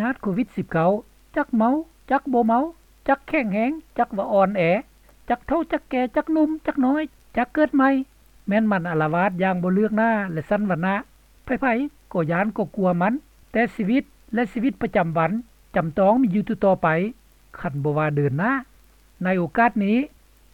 ຍາດໂຄວິດສິບເກົ້າ ຈັກເມົາ ຈັກບໍ່ເມົາ ຈັກແຂງແຮງ ຈັກວ່າອ່ອນແອ ຈັກເຖົ້າ ຈັກແກ່ ຈັກໜຸ່ມ ຈັກນ້ອຍ ຈັກເກີດໃໝ່ ແມ່ນມັນອາລະວາດຢ່າງບໍ່ເລືອກໜ້າ ແລະ ຊັ້ນວັນນະ. ໃຜໆກໍຢ້ານກໍກົວມັນ, ແຕ່ຊີວິດ ແລະ ຊີວິດປະຈຳວັນຈຳຕ້ອງມີຢູ່ຕໍ່ໆໄປ ຄັນບໍ່ວ່າເດີນໜ້າ. ໃນໂອກາດນີ້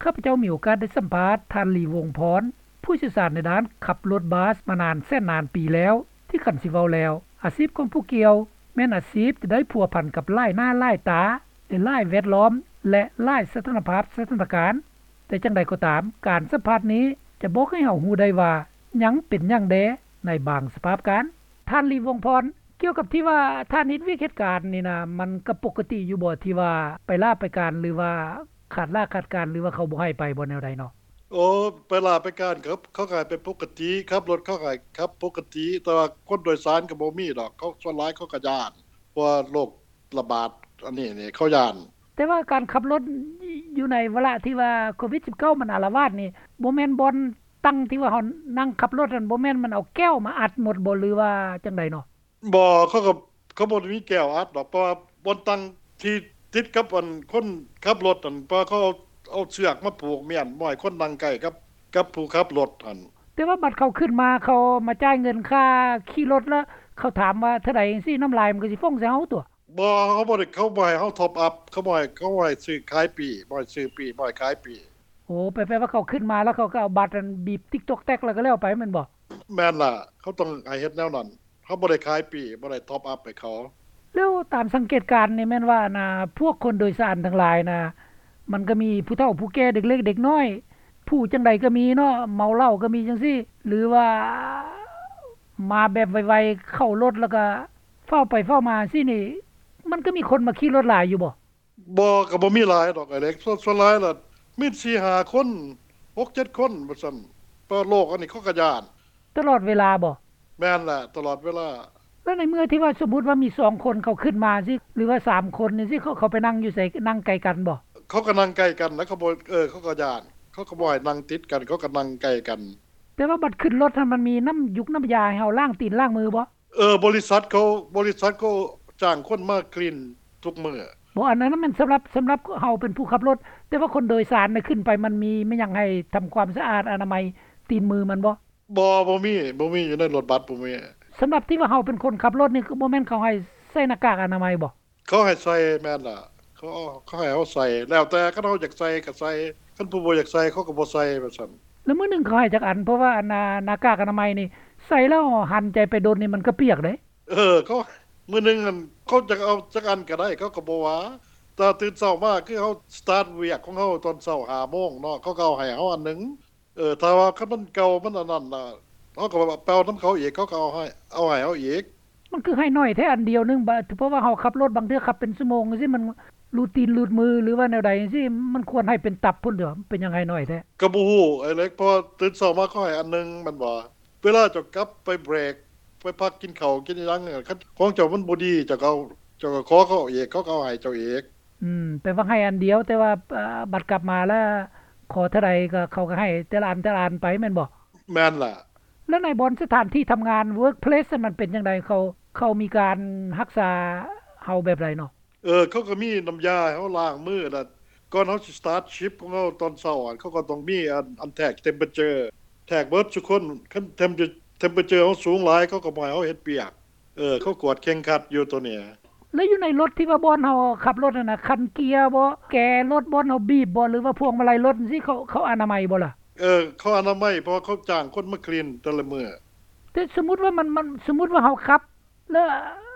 ຂ້າພະເຈົ້າມີໂອກາດໄດ້ສຳພາດທ່ານ ລີ ວົງພອນ ຜູ້ຊ່ຽວຊານໃນດ້ານຂັບລົດບັສມານານແສນນານປີແລ້ວ ທີ່ຄັນຊິເວົ້າແລ້ວ ອາຊີບຂອງຜູ້ກ່ຽວແມ່ນອາຊີບທີ່ໄດ້ພົວພັນກັບຫຼາຍໜ້າຫຼາຍຕາ ໃນຫຼາຍແວດລ້ອມ ແລະ ຫຼາຍສະຖານະພາບສະຖານະການ. ແຕ່ຈັ່ງໃດກໍຕາມ, ການສຳພາດນີ້ຈະບອກໃຫ້ເຮົາຮູ້ໄດ້ວ່າຫຍັງເປັນຫຍັງແດ່ໃນບາງສະພາບການ. ທ່ານ ລີ ວົງພອນ, ກ່ຽວກັບທີ່ວ່າທ່ານເຮັດວຽກເຮັດການນີ້ນະ ມັນກໍປົກກະຕິຢູ່ບໍ່ ທີ່ວ່າໄປລາໄປການ ຫຼືວ່າຂາດລາຂາດການ ຫຼືວ່າເຂົາບໍ່ໃຫ້ໄປບໍ່ ແນວໃດເນາະ? ໂອ້ ໄປລາໄປການ ເຂົາ ເຂົາກໍໃຫ້ໄປປົກກະຕິ, ຂັບລົດເຂົາກໍໃຫ້ຂັບປົກກະຕິ, ແຕ່ວ່າຄົນໂດຍສານກໍບໍ່ມີດອກ, ເຂົາ ສ່ວນຫຼາຍເຂົາກໍຢ້ານ ເພາະວ່າໂລກ ລະບາດອັນນີ້ນີ້ ເຂົາຢ້ານ. ແຕ່ວ່າການຂັບລົດຢູ່ໃນວາລະທີ່ວ່າໂຄວິດສິບເກົ້າມັນອາລະວາດນີ້ ບໍ່ແມ່ນບ່ອນນັ່ງທີ່ວ່າເຮົານັ່ງຂັບລົດຫັ້ນ ບໍ່ແມ່ນມັນເອົາແກ້ວມາອັດໝົດບໍ່ ຫຼືວ່າຈັ່ງໃດເນາະ? ບໍ່ ເຂົາກໍ ເຂົາບໍ່ໄດ້ມີແກ້ວອັດດອກ ເພາະວ່າບ່ອນນັ່ງທີ່ຕິດກັບອັນຄົນຂັບລົດຫັ້ນ ເພາະເຂົາເອົາ ເອົາເຊືອກມາຜູກມ້ຽນ ບໍ່ໃຫ້ຄົນນັ່ງໃກ້ກັບ ກັບຜູ້ຂັບລົດຫັ້ນ. ແຕ່ວ່າບັດເຂົາຂຶ້ນມາ ເຂົາມາຈ່າຍເງິນຄ່າຂີ່ລົດ ແລ້ວເຂົາຖາມວ່າເທົ່າໃດຈັ່ງຊີ້ ນ້ຳລາຍມັນກໍຊິຟົງໃສ່ເຮົາຕົວະ. ບໍ່ ເຂົາບໍ່ໄດ້ ເຂົາບໍ່ໃຫ້ເຮົາທັອບອັບ ເຂົາບໍ່ໃຫ້ ເຂົາບໍ່ໃຫ້ຊື້ຂາຍປີ້ ບໍ່ໃຫ້ຊື້ປີ້ ບໍ່ໃຫ້ຂາຍປີ້. ໂອ້ ແປ ແປວ່າເຂົາຂຶ້ນມາແລ້ວເຂົາກໍເອົາບັດອັນບີບຕິກຕອກແຕັກແລ້ວກໍແລ້ວໄປແມ່ນບໍ່? ແມ່ນລະ ເຂົາຕ້ອງໃຫ້ເຮັດແນວນັ້ນ ເຮົາບໍ່ໄດ້ຂາຍປີ້ ບໍ່ໄດ້ທັອບອັບໃຫ້ເຂົາ. ແລ້ວຕາມສັງເກດການນີ້ແມ່ນວ່າ ອັນນ່າ ພວກຄົນໂດຍສານທັງຫຼາຍນະ ມັນກໍມີຜູ້ເຖົ້າຜູ້ແກ່ ເດັກເລັກເດັກນ້ອຍ ຜູ້ຈັ່ງໃດກໍມີເນາະ ເມົາເຫຼົ້າກໍມີຈັ່ງຊີ້ ຫຼືວ່າມາແບບໄວໆ ເຂົ້າລົດແລ້ວກໍ ຟ້າວໄປຟ້າວມາຊີ້ນີ້ ມັນກໍມີຄົນມາຂີ່ລົດຫຼາຍຢູ່ບໍ່? ບໍ່ ກໍບໍ່ມີຫຼາຍດອກອ້າຍເລັກ ສ່ວນ ສ່ວນຫຼາຍລະມີສີ່ຫ້າຄົນ ຫົກເຈັດຄົນວ່າຊັ້ນ ເພາະໂລກອັນນີ້ເຂົາກໍຢ້ານ. ຕະຫຼອດເວລາບໍ່? ແມ່ນແຫຼະ ຕະຫຼອດເວລາ. ແລ້ວໃນເມື່ອທີ່ວ່າສົມມຸດວ່າມີສອງຄົນເຂົາຂຶ້ນມາຊີ້ ຫຼືວ່າສາມຄົນຈັ່ງຊີ້ ເຂົາ ເຂົາໄປນັ່ງຢູ່ໃສ ນັ່ງໃກ້ກັນບໍ່? ເຂົາກໍນັ່ງໃກ້ກັນນະ ເຂົາບໍ່ ເອີ ເຂົາກໍຢ້ານ ເຂົາກໍບໍ່ໃຫ້ນັ່ງຕິດກັນ ເຂົາກໍນັ່ງໃກ້ກັນ. ແຕ່ວ່າບັດຂຶ້ນລົດຫັ້ນ ມັນມີນ້ຳຢູກນ້ຳຢາໃຫ້ເຮົາລ້າງຕີນລ້າງມືບໍ່? ເອີ ບໍລິສັດເຂົາ ບໍລິສັດເຂົາຈ້າງຄົນມາຄລີນທຸກມື້. ບໍ່ ອັນນັ້ນແມ່ນສຳລັບ ສຳລັບເຮົາເປັນຜູ້ຂັບລົດ ແຕ່ວ່າຄົນໂດຍສານນະ ຂຶ້ນໄປມັນມີແມ່ນຫຍັງໃຫ້ທຳຄວາມສະອາດອະນາໄມຕີນມືມັນບໍ່? ບໍ່ ບໍ່ມີ ບໍ່ມີ ຢູ່ໃນລົດບັສບໍ່ມີ. ສຳລັບທີ່ວ່າເຮົາເປັນຄົນຂັບລົດນີ້ ຄືບໍ່ແມ່ນເຂົາໃຫ້ໃສ່ໜ້າກາກອະນາໄມບໍ່? ເຂົາໃຫ້ໃສ່ ແມ່ນລະ ເຂົາ ເຂົາໃຫ້ເຮົາໃສ່ ແລ້ວແຕ່ ຄັນເຮົາຢາກໃສ່ກໍໃສ່ ຄັນຜູ້ບໍ່ຢາກໃສ່ເຂົາກໍບໍ່ໃສ່ ວ່າຊັ້ນ. ແລ້ວມື້ໜຶ່ງເຂົາໃຫ້ຈັກອັນ? ເພາະວ່າອັນ ໜ້າ ໜ້າກາກອະນາໄມນີ້ ໃສ່ແລ້ວຫັນໃຈໄປດົນນີ້ມັນກໍປຽກເດ້. ເອີ ເຂົາ ມື້ໜຶ່ງຫັ້ນ ເຂົາຈະເອົາຈັກອັນກໍໄດ້ ເຂົາກໍບໍ່ວ່າ ແຕ່ຕື່ນເຊົ້າມາ ຄືເຮົາສະຕາດວຽກຂອງເຮົາຕອນເຊົ້າຫ້າໂມງເນາະ ເຂົາກໍເອົາໃຫ້ເຮົາອັນໜຶ່ງ. ເອີ ຖ້າວ່າຄັນມັນເກົ່າ ມັນອັນນັ້ນນະ ເຮົາກໍແບບວ່າໄປເອົານຳເຂົາອີກ ເຂົາກໍເອົາໃຫ້ ເອົາໃຫ້ເຮົາອີກ. ມັນຄືໃຫ້ໜ້ອຍແທ້ອັນດຽວໜຶ່ງ ບະ ເພາະວ່າເຮົາຂັບລົດບາງເທື່ອຂັບເປັນຊົ່ວໂມງຈັ່ງຊີ້ ມັນຮູດຕີນຮູດມື ຫຼືວ່າແນວໃດຈັ່ງຊີ້ ມັນຄວນໃຫ້ເປັນຕັບພຸ້ນເດ ເປັນຫຍັງໃຫ້ໜ້ອຍແທ້? ກໍບໍ່ຮູ້ອ້າຍເລັກ ເພາະຕື່ນເຊົ້າມາເຂົາໃຫ້ອັນໜຶ່ງແມ່ນບໍ່ ເວລາເຈົ້າກັບໄປເບຣກ ໄປພັກກິນເຂົ້າກິນຫຍັງ ຄັນຂອງເຈົ້າມັນບໍ່ດີ ເຈົ້າກໍເອົາ ເຈົ້າກໍຂໍເຂົາອີກ ເຂົາກໍເອົາໃຫ້ເຈົ້າອີກ. ອືມ ແປວ່າໃຫ້ອັນດຽວ ແຕ່ວ່າ ເອີ ບັດກັບມາແລ້ວ ຂໍເທົ່າໃດກໍເຂົາກໍໃຫ້ແຕ່ລະອັນແຕ່ລະອັນໄປແມ່ນບໍ່? ແມ່ນລະ. ແລ້ວໃນບ່ອນສະຖານທີ່ທຳງານ ເວີກເພລສ ມັນເປັນຈັ່ງໃດ? ເຂົາ ເຂົາມີການຮັກສາເຮົາແບບໃດເນາະ? ເອີ ເຂົາກໍມີນ້ຳຢາໃຫ້ເຮົາລ້າງມື ແລ້ວກ່ອນເຮົາຊິສະຕາດຊິບຂອງເຮົາຕອນເຊົ້າ ເຂົາກໍຕ້ອງມີອັນ ອັນແທກເທັມເປີເຈີ ແທກເບິດທຸກຄົນ ຄັນເທັມເປີເຈີເຮົາສູງຫຼາຍ ເຂົາກໍບໍ່ໃຫ້ເຮົາເຮັດວຽກ. ເອີ ເຂົາກວດເຄັ່ງຄັດຢູ່ໂຕນີ້. ແລ້ວຢູ່ໃນລົດທີ່ວ່າບ່ອນເຮົາຂັບລົດຫັ້ນນະ ຄັນເກຍບໍ ແກລົດ ບ່ອນເຮົາບີບບໍ ຫຼືວ່າພວງມາໄລລົດຈັ່ງຊີ້ ເຂົາ ເຂົາອະນາໄມບໍ່ລະ? ເອີ ເຂົາອະນາໄມ ເພາະວ່າເຂົາຈ້າງຄົນມາຄລີນແຕ່ລະມື້. ແຕ່ສົມມຸດວ່າມັນ ມັນ ສົມມຸດວ່າເຮົາຂັບ ແລ້ວ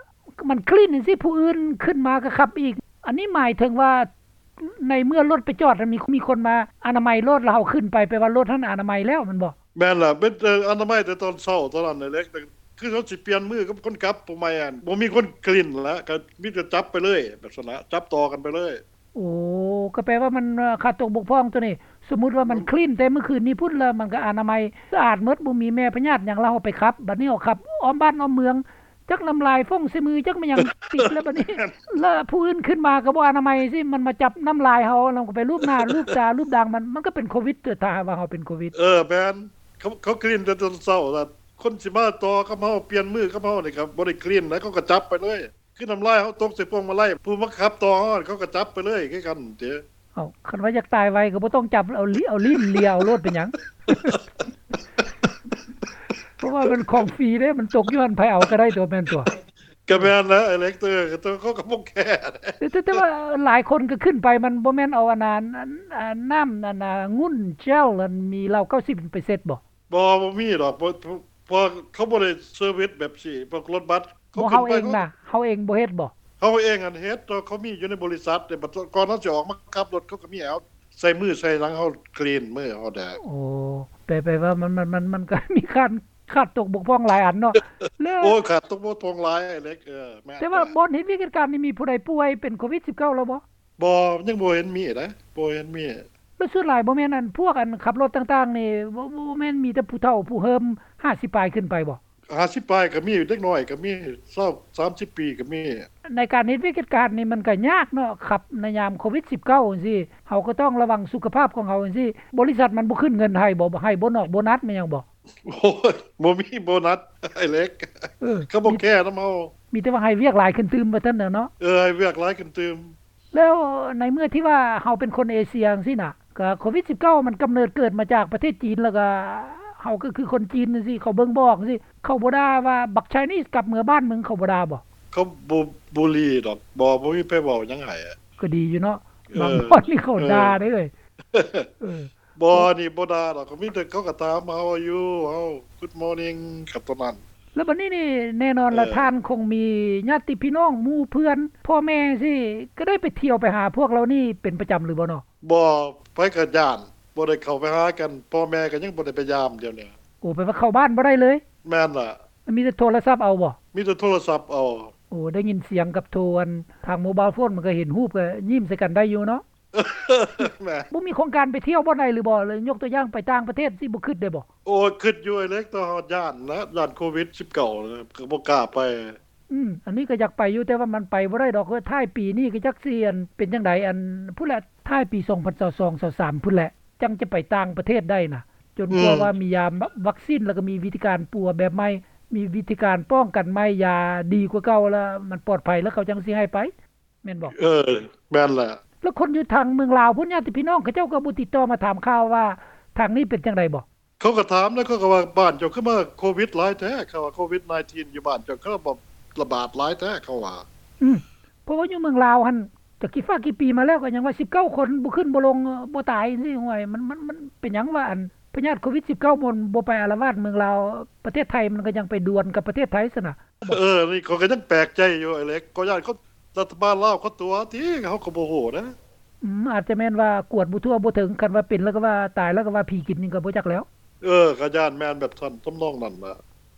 ມັນຄລີນຈັ່ງຊີ້ ຜູ້ອື່ນຂຶ້ນມາກໍຂັບອີກ ອັນນີ້ໝາຍເຖິງວ່າ ໃນເມື່ອລົດໄປຈອດ ມີ ມີຄົນມາອະນາໄມລົດ ແລ້ວເຮົາຂຶ້ນໄປ ແປວ່າລົດຫັ້ນອະນາໄມແລ້ວແມ່ນບໍ່? ແມ່ນລະ ເປັນ ເອີ ອະນາໄມແຕ່ຕອນເຊົ້າຕອນນັ້ນແຫຼະ ຄືເຮົາຊິປ່ຽນມືກັບຄົນຂັບ ຜູ້ໃໝ່ ບໍ່ມີຄົນຄລີນລະ ກໍມີແຕ່ຈັບໄປເລີຍ ແບບຊັ້ນລະ ຈັບຕໍ່ກັນໄປເລີຍ. ໂອ້ ກໍແປວ່າມັນຂາດຕົກບົກຜ່ອງໂຕນີ້. ສົມມຸດວ່າມັນຄລີນແຕ່ມື້ຄືນນີ້ພຸ້ນ ແລ້ວມັນກໍອະນາໄມສະອາດໝົດ ບໍ່ມີແມ່ພະຍາດຫຍັງ ແລ້ວເຮົາໄປຂັບ ບັດນີ້ເຮົາຂັບອ້ອມບ້ານອ້ອມເມືອງ ຈັກນ້ຳລາຍຟົງໃສ່ມື ຈັກແມ່ນຫຍັງຕິດແລ້ວບັດນີ້ ແລ້ວຜູ້ອື່ນຂຶ້ນມາກໍບໍ່ອະນາໄມຊີ້ ມັນມາຈັບນ້ຳລາຍເຮົາ ແລ້ວມັນກໍໄປລູບໜ້າລູບຕາລູບດາງ ມັນ ມັນກໍເປັນໂຄວິດຕົວະ ຖ້າຫາກວ່າເຮົາເປັນໂຄວິດ. ເອີ ແມ່ນ ເຂົາ ເຂົາຄລີນແຕ່ຕອນເຊົ້າ ແລ້ວຄົນຊິມາຕໍ່ກັບເຮົາ ປ່ຽນມືກັບເຮົານີ້ກໍບໍ່ໄດ້ຄລີນ ແລ້ວເຂົາກໍຈັບໄປເລີຍ. ຄືນ້ຳລາຍເຮົາຕົກໃສ່ພວງມາໄລ ຜູ້ມາຂັບຕໍ່ເຮົາ ເຂົາກໍຈັບໄປເລີຍຄືກັນເດ້. ເອົ້າ ຄັນວ່າຢາກຕາຍໄວກໍບໍ່ຕ້ອງຈັບ ເອົາ ເອົາລີ້ນເລຍເອົາໂລດ ເປັນຫຍັງ? ເພາະວ່າມັນຂອງຟຣີເດ້ ມັນຕົກຢູ່ຫັ້ນ ໃຜເອົາກໍໄດ້ຕົວະ ແມ່ນຕົວະ. ກໍແມ່ນແຫຼະ ເອເລັກເຕີ ເຂົາກໍບໍ່ແຄ. ແຕ່ ແຕ່ວ່າຫຼາຍຄົນກໍຂຶ້ນໄປ ມັນບໍ່ແມ່ນເອົາອັນນັ້ນ ອັນ ອັນນ້ຳອັນ ອາ ງຸ່ນເຈວ ອັນມີເຫຼົ້າເກົ້າສິບເປີເຊັນບໍ່? ບໍ່ ບໍ່ມີດອກ ເພາະ ເພາະ ເພາະເຂົາບໍ່ໄດ້ເຊີວິສແບບຊີ້ ພວກລົດບັສ ເຂົາຂຶ້ນໄປ ເຮົາເອງນະ ເຮົາເອງບໍ່ເຮັດບໍ່? ເຮົາເອງຫັ້ນເຮັດ ແຕ່ເຂົາມີຢູ່ໃນບໍລິສັດເດ້ ບັດກ່ອນເຮົາຊິອອກມາຂັບລົດ ເຂົາກໍມີໃຫ້ເຮົາ ໃສ່ມືໃສ່ຫຍັງ ເຮົາຄລີນມືເຮົາແດ່. ໂອ້ ແປ ແປວ່າມັນ ມັນ ມັນ ມັນກໍມີການຂາດຕົກບົກຜ່ອງຫຼາຍອັນເນາະ ແລ້ວ ໂອ້ຍ ຂາດຕົກບົກຜ່ອງຫຼາຍ ເລັກ ເອີ ແມ່ນ. ແຕ່ວ່າບ່ອນເຮັດວຽກເຮັດການນີ້ ມີຜູ້ໃດປ່ວຍເປັນໂຄວິດສິບເກົ້າແລ້ວບໍ່? ບໍ່ ຍັງບໍ່ເຫັນມີເດ້ ບໍ່ເຫັນມີ. ແລ້ວສ່ວນຫຼາຍບໍ່ແມ່ນອັນ ພວກອັນຂັບລົດຕ່າງໆນີ້ ບໍ່ ບໍ່ແມ່ນມີແຕ່ຜູ້ເຖົ້າຜູ້ເຫີມ ຫ້າສິບປາຍຂຶ້ນໄປບໍ່? ຫ້າສິບປາຍກໍມີ ເດັກນ້ອຍກໍມີ ຊາວ ສາມສິບປີກໍມີ. ໃນການເຮັດວຽກເຮັດການນີ້ມັນກໍຍາກເນາະ ຂັບໃນຍາມໂຄວິດສິບເກົ້າຈັ່ງຊີ້ ເຮົາກໍຕ້ອງລະວັງສຸຂະພາບຂອງເຮົາຈັ່ງຊີ້ ບໍລິສັດມັນບໍ່ຂຶ້ນເງິນໃຫ້ບໍ່? ໃຫ້ໂບນອກໂບນັດແມ່ນຫຍັງບໍ່? ໂອ້ຍ ບໍ່ມີໂບນັດ ອ້າຍເລັກ ເອີ ເຂົາບໍ່ແຄນຳເຮົາ ມີແຕ່ວ່າໃຫ້ວຽກຫຼາຍຂຶ້ນຕື່ມວ່າຊັ້ນເນາະ. ເອີ ໃຫ້ວຽກຫຼາຍຂຶ້ນຕື່ມ. ແລ້ວໃນເມື່ອທີ່ວ່າເຮົາເປັນຄົນເອເຊຍຈັ່ງຊີ້ນະ ກະໂຄວິດສິບເກົ້າມັນກຳເນີດເກີດມາຈາກປະເທດຈີນ ແລ້ວກະເຮົາກໍຄືຄົນຈີນຈັ່ງຊີ້ ເຂົາເບິ່ງບໍ່ອອກຈັ່ງຊີ້ ເຂົາບໍ່ດ່າວ່າບັກໄຊນີສກັບເມືອບ້ານເມືອງ ເຂົາບໍ່ດ່າບໍ່? ເຂົາບໍ່ບູລີດອກ ບໍ່ ບໍ່ມີໃຜເວົ້າຫຍັງໃຫ້. ກໍດີຢູ່ເນາະ ເອີ ບາງບ່ອນນີ້ເຂົາ ເອີ ດ່າເດ້ເອີຍ. ເອີ ບໍ່ ນີ້ບໍ່ດ່າດອກ ກໍມີແຕ່ເຂົາກໍຖາມ How are you? How Good morning ກັບຕົວນັ້ນ. ແລ້ວບັດນີ້ນີ້ແນ່ນອນລະ ເອີ ທ່ານຄົງມີຍາດຕິພີ່ນ້ອງ ໝູ່ເພື່ອນ ພໍ່ແມ່ຈັ່ງຊີ້ ກໍໄດ້ໄປທ່ຽວໄປຫາພວກເຫຼົ່ານີ້ເປັນປະຈຳຫຼືບໍ່ເນາະ? ບໍ່ ໃຜກໍຢ້ານ ບໍ່ໄດ້ເຂົ້າໄປຫາກັນ ພໍ່ແມ່ກໍຍັງບໍ່ໄດ້ໄປຢາມດຽວນີ້. ໂອ້ ແປວ່າເຂົ້າບ້ານບໍ່ໄດ້ເລີຍ? ແມ່ນລະ. ມີແຕ່ໂທລະສັບເອົາບໍ່? ມີແຕ່ໂທລະສັບເອົາ. ໂອ້ ໄດ້ຍິນສຽງກັບໂທ ອັນ ທາງໂມບາຍໂຟນ ມັນກໍເຫັນຮູບ ກໍຍິ້ມໃສ່ກັນໄດ້ຢູ່ເນາະ. ແມ່ນ. ບໍ່ມີໂຄງການໄປທ່ຽວບ່ອນໃດຫຼືບໍ່? ຍົກຕົວຢ່າງໄປຕ່າງປະເທດ ຊິບໍ່ຄິດໄດ້ບໍ່? ໂອ້ຍ ຄິດຢູ່ອ້າຍເລັກ ແຕ່ວ່າຢ້ານນະ ຢ້ານໂຄວິດສິບເກົ້ານະ ກໍບໍ່ກ້າໄປ. ອືມ ອັນນີ້ກໍຢາກໄປຢູ່ ແຕ່ວ່າມັນໄປບໍ່ໄດ້ດອກ. ທ້າຍປີນີ້ກໍຈັກຊິ ອັນ ເປັນຈັ່ງໃດ ອັນ ພຸ້ນແຫຼະ ທ້າຍປີສອງພັນຊາວສອງ ຊາວສາມພຸ້ນແຫຼະ ຈັ່ງຈະໄປຕ່າງປະເທດໄດ້ນະ ຈົນກວ່າ ອືມ ວ່າມີຢາ ວັກຊີນ ແລ້ວກໍມີວິທີການປົວແບບໃໝ່ ມີວິທີການປ້ອງກັນໃໝ່ ຢາດີກວ່າເກົ່າ ແລ້ວມັນປອດໄພ ແລ້ວເຂົາຈັ່ງຊິໃຫ້ໄປ. ແມ່ນບໍ່? ເອີ ແມ່ນແຫຼະ. ແລ້ວຄົນຢູ່ທາງເມືອງລາວພຸ້ນ ຍາດຕິພີ່ນ້ອງເຂົາເຈົ້າກໍບໍ່ຕິດຕໍ່ມາຖາມຂ່າວວ່າທາງນີ້ເປັນຈັ່ງໃດບໍ່? ເຂົາກໍຖາມນະ ເຂົາກໍວ່າບ້ານເຈົ້າຄືມາໂຄວິດຫຼາຍແທ້ ເຂົາວ່າໂຄວິດສິບເກົ້າຢູ່ບ້ານເຈົ້າຄືລະບາດຫຼາຍແທ້ ເຂົາວ່າ. ອືມ ເພາະວ່າຢູ່ເມືອງລາວຫັ້ນ ຈັກກີ່ຟ້າກີ່ປີມາແລ້ວ ກໍຍັງວ່າສິບເກົ້າຄົນ ບໍ່ຂຶ້ນບໍ່ລົງ ບໍ່ຕາຍຈັ່ງຊີ້. ໂອ້ຍ ມັນ ມັນ ມັນເປັນຫຍັງວ່າ ອັນ ພະຍາດໂຄວິດສິບເກົ້າມັນບໍ່ໄປອາລະວາດເມືອງລາວ ປະເທດໄທມັນກໍຍັງໄປດວນກັບປະເທດໄທຊັ້ນນະ. ເອີ ນີ້ຂ້ອຍກໍຍັງແປກໃຈຢູ່ອ້າຍເລັກ ກໍຢ້ານຄົນ ລັດຖະບານລາວເຂົາຕົວະຕິ ເຮົາກໍບໍ່ຮູ້ນະ. ອືມ ອາດຈະແມ່ນວ່າກວດບໍ່ທົ່ວບໍ່ເຖິງ ຄັນວ່າເປັນແລ້ວກໍວ່າຕາຍແລ້ວກໍວ່າຜີກິນນີ້ກໍບໍ່ຈັກແລ້ວ. ເອີ ກໍຢ້ານແມ່ນແບບຊັ້ນ ທຳນອງນັ້ນລະ.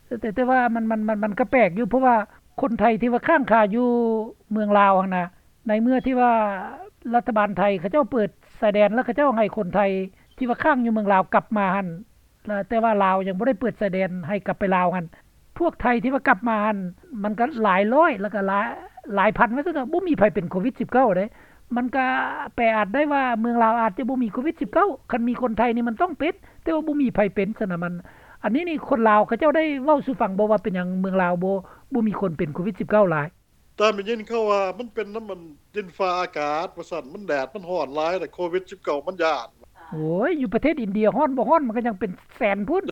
ແຕ່ ແຕ່ ແຕ່ວ່າມັນ ມັນ ມັນ ມັນກໍແປກຢູ່ ເພາະວ່າຄົນໄທທີ່ວ່າຄ້າງຄາຢູ່ເມືອງລາວຫັ້ນນະ ໃນເມື່ອທີ່ວ່າລັດຖະບານໄທເຂົາເຈົ້າເປີດຊາຍແດນ ແລ້ວເຂົາເຈົ້າໃຫ້ຄົນໄທທີ່ວ່າຄ້າງຢູ່ເມືອງລາວກັບມາຫັ້ນ ແຕ່ວ່າລາວຍັງບໍ່ໄດ້ເປີດຊາຍແດນໃຫ້ກັບໄປລາວຫັ້ນ ພວກໄທທີ່ວ່າກັບມາຫັ້ນ ມັນກໍຫຼາຍຮ້ອຍ ແລ້ວກໍຫຼາຍ ຫຼາຍພັນວ່າຊັ້ນເຖາະ ບໍ່ມີໃຜເປັນໂຄວິດສິບເກົ້າເດ້. ມັນກໍແປອາດໄດ້ວ່າເມືອງລາວອາດຈະບໍ່ມີໂຄວິດສິບເກົ້າ ຄັນມີຄົນໄທນີ້ມັນຕ້ອງເປັນ ແຕ່ວ່າບໍ່ມີໃຜເປັນຊັ້ນນະ. ມັນ ອັນນີ້ນີ້ຄົນລາວເຂົາເຈົ້າໄດ້ເວົ້າສູ່ຟັງບໍ່ວ່າເປັນຫຍັງເມືອງລາວບໍ່ ບໍ່ມີຄົນເປັນໂຄວິດສິບເກົ້າຫຼາຍ? ຕາມໄດ້ຍິນເຂົາວ່າມັນເປັນນຳມັນດິນຟ້າອາກາດວ່າຊັ້ນ ມັນແດດມັນຮ້ອນຫຼາຍ ແລ້ວໂຄວິດສິບເກົ້າມັນຢ້ານ. ໂອ້ຍ ຢູ່ປະເທດອິນເດຍຮ້ອນບໍ່ຮ້ອນ ມັນກໍຍັງເປັນແສນພຸ້ນ.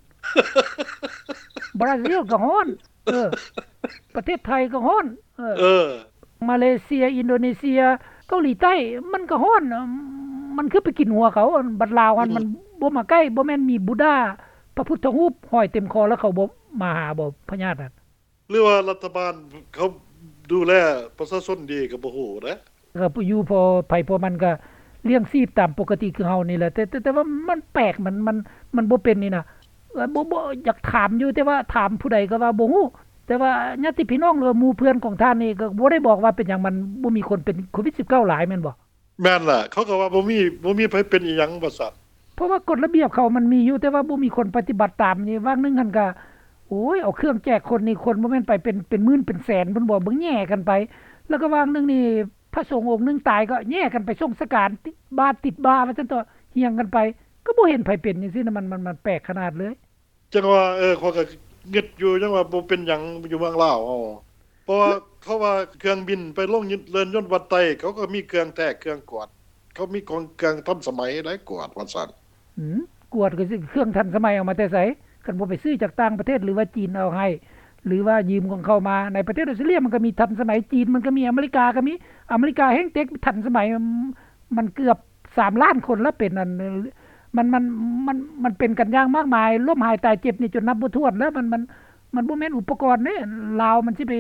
ບຣາຊິລກໍຮ້ອນ ເອີ ປະເທດໄທກໍຮ້ອນ ເອີ ເອີ ມາເລເຊຍ ອິນໂດເນເຊຍ ເກົາຫຼີໃຕ້ ມັນກໍຮ້ອນ ມັນຄືໄປກິນຫົວເຂົາ. ບັດລາວຫັ້ນ ອືມ ມັນບໍ່ມາໃກ້ ບໍ່ແມ່ນມີບຸດດາ ພະພຸດທະຮູບຫ້ອຍເຕັມຄໍ ແລ້ວເຂົາບໍ່ມາຫາບໍ່ ພະຍາດນັ້ນ? ຫຼືວ່າລັດຖະບານເຂົາດູແລປະຊາຊົນດີກໍບໍ່ຮູ້ເດ້. ກໍຢູ່ພໍໃຜພໍມັນກໍລ້ຽງຊີບຕາມປົກກະຕິຄືເຮົານີ້ແຫຼະ. ແຕ່ ແຕ່ ແຕ່ວ່າມັນແປກ ມັນ ມັນ ມັນບໍ່ເປັນນີ້ນະ. ເອີ ບໍ່ ບໍ່ ຢາກຖາມຢູ່ ແຕ່ວ່າຖາມຜູ້ໃດກໍວ່າບໍ່ຮູ້. ແຕ່ວ່າຍາດຕິພີ່ນ້ອງ ຫຼືວ່າໝູ່ເພື່ອນຂອງທ່ານນີ້ກໍບໍ່ໄດ້ບອກວ່າເປັນຫຍັງມັນບໍ່ມີຄົນເປັນໂຄວິດສິບເກົ້າຫຼາຍແມ່ນບໍ່? ແມ່ນລະ ເຂົາກໍວ່າບໍ່ມີ ບໍ່ມີໃຜເປັນອີ່ຫຍັງວ່າຊັ້ນ. ເພາະວ່າກົດລະບຽບເຂົາມັນມີຢູ່ ແຕ່ວ່າບໍ່ມີຄົນປະຕິບັດຕາມ. ນີ້ວ່າງໜຶ່ງຫັ້ນກໍ ໂອ້ຍ ເອົາເຄື່ອງແຈກຄົນນີ້ ຄົນບໍ່ແມ່ນໄປເປັນ ເປັນໝື່ນເປັນແສນພຸ້ນບໍ່ ເບິ່ງແຍ່ກັນໄປ. ແລ້ວກໍວ່າງໜຶ່ງນີ້ ພະສົງອົງໜຶ່ງຕາຍກໍແຍ່ກັນໄປສົ່ງສະການ ຕິດບາດຕິດບາວ່າຊັ້ນເຖາະ ຮຽງກັນໄປ ກໍບໍ່ເຫັນໃຜເປັນຈັ່ງຊີ້ນະ. ມັນ ມັນ ມັນແປກຂະໜາດເລີຍ. ຈັ່ງວ່າ ເອີ ຂ້ອຍກໍງຶດຢູ່ ຍັງວ່າບໍ່ເປັນຫຍັງຢູ່ເມືອງລາວເຮົາ ເພາະວ່າ ເຂົາວ່າເຄື່ອງບິນໄປລົງເລີນຍົນວັດໄຕ ເຂົາກໍມີເຄື່ອງແທກເຄື່ອງກວດ ເຂົາມີຂອງເຄື່ອງທັນສະໄໝໄດ້ກວດວ່າຊັ້ນ. ອືມ ກວດກໍຊິເຄື່ອງທັນສະໄໝເອົາມາແຕ່ໃສ? ຄັນບໍ່ໄປຊື້ຈາກຕ່າງປະເທດ ຫຼືວ່າຈີນເອົາໃຫ້ ຫຼືວ່າຢືມຂອງເຂົາມາ. ໃນປະເທດອອສເຕຣເລຍມັນກໍມີທັນສະໄໝ, ຈີນມັນກໍມີ, ອາເມລິກາກໍມີ. ອາເມລິກາແຮ່ງເຕັກທັນສະໄໝ ມັນເກືອບສາມລ້ານຄົນແລ້ວເປັນອັນ ມັນ ມັນ ມັນ ມັນເປັນກັນຢ່າງມາກມາຍ ລົ້ມຫາຍຕາຍເຈັບນີ້ຈົນນັບບໍ່ຖ້ວນແລ້ວ. ມັນ ມັນ ມັນບໍ່ແມ່ນອຸປະກອນເດ້ ລາວມັນຊິໄປ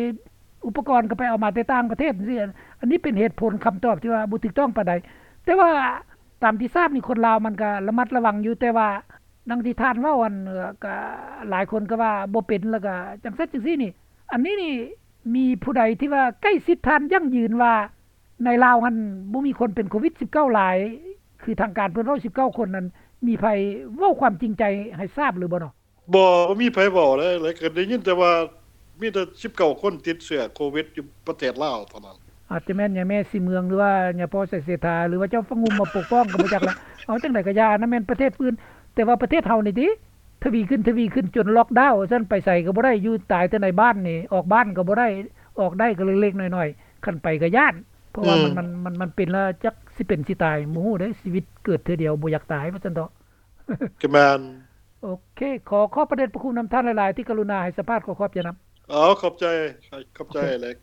ອຸປະກອນກໍໄປເອົາມາແຕ່ຕ່າງປະເທດຈັ່ງຊີ້. ອັນນີ້ເປັນເຫດຜົນຄຳຕອບທີ່ວ່າບໍ່ຖືກຕ້ອງປານໃດ. ແຕ່ວ່າຕາມທີ່ຊາບນີ້ ຄົນລາວມັນກໍລະມັດລະວັງຢູ່ ແຕ່ວ່າດັ່ງທີ່ທ່ານເວົ້າ ອັນ ກໍຫຼາຍຄົນກໍວ່າບໍ່ເປັນ ແລ້ວກໍຈັ່ງຊັ້ນຈັ່ງຊີ້ນີ້. ອັນນີ້ນີ້ມີຜູ້ໃດທີ່ວ່າໃກ້ຊິດທ່ານຢັ້ງຢືນວ່າ ໃນລາວຫັ້ນບໍ່ມີຄົນເປັນໂຄວິດສິບເກົ້າຫຼາຍ ຄືທາງການເພິ່ນເວົ້າສິບເກົ້າຄົນນັ້ນ ມີໃຜເວົ້າຄວາມຈິງໃຈໃຫ້ຊາບຫຼືບໍ່ເນາະ? ບໍ່ ບໍ່ມີໃຜເວົ້າເລີຍ ແລ້ວກໍໄດ້ຍິນແຕ່ວ່າມີແຕ່ສິບເກົ້າຄົນຕິດເຊື້ອໂຄວິດຢູ່ປະເທດລາວເທົ່ານັ້ນ. ອາດຈະແມ່ນຍາແມ່ສີເມືອງ ຫຼືວ່າຍາພໍ່ໄຊເສດຖາ ຫຼືວ່າເຈົ້າຟະງຸ່ມມາປົກປ້ອງກໍບໍ່ຈັກລະ. ເອົາຈັ່ງໃດກໍຢ່າ ອັນນັ້ນແມ່ນປະເທດອື່ນ ແຕ່ວ່າປະເທດເຮົານີ້ຕິ ທະວີຂຶ້ນ ທະວີຂຶ້ນ ຈົນລັອກດາວຊັ້ນ ໄປໃສກໍບໍ່ໄດ້ ຢູ່ຕາຍແຕ່ໃນບ້ານນີ້ ອອກບ້ານກໍບໍ່ໄດ້ ອອກໄດ້ກໍເລັກໆນ້ອຍໆ ຄັນໄປກໍຢ້ານ ເພາະວ່າ ອືມ ມັນ ມັນ ມັນ ມັນເປັນແລ້ວຈັກຊິເປັນຊິຕາຍ ບໍ່ຮູ້ເດ້ ຊີວິດເກີດເທື່ອດຽວ ບໍ່ຢາກຕາຍວ່າຊັ້ນເຖາະ. ກໍແມ່ນ. ໂອເຄ ຂໍຂອບພະເດດພະຄຸນນຳທ່ານຫຼາຍໆ ທີ່ກະລຸນາໃຫ້ສຳພາດ ຂໍຂອບໃຈນຳ. ເອົາ ຂອບໃຈ ຂອບໃຈ ໂອເຄ ເລັກ.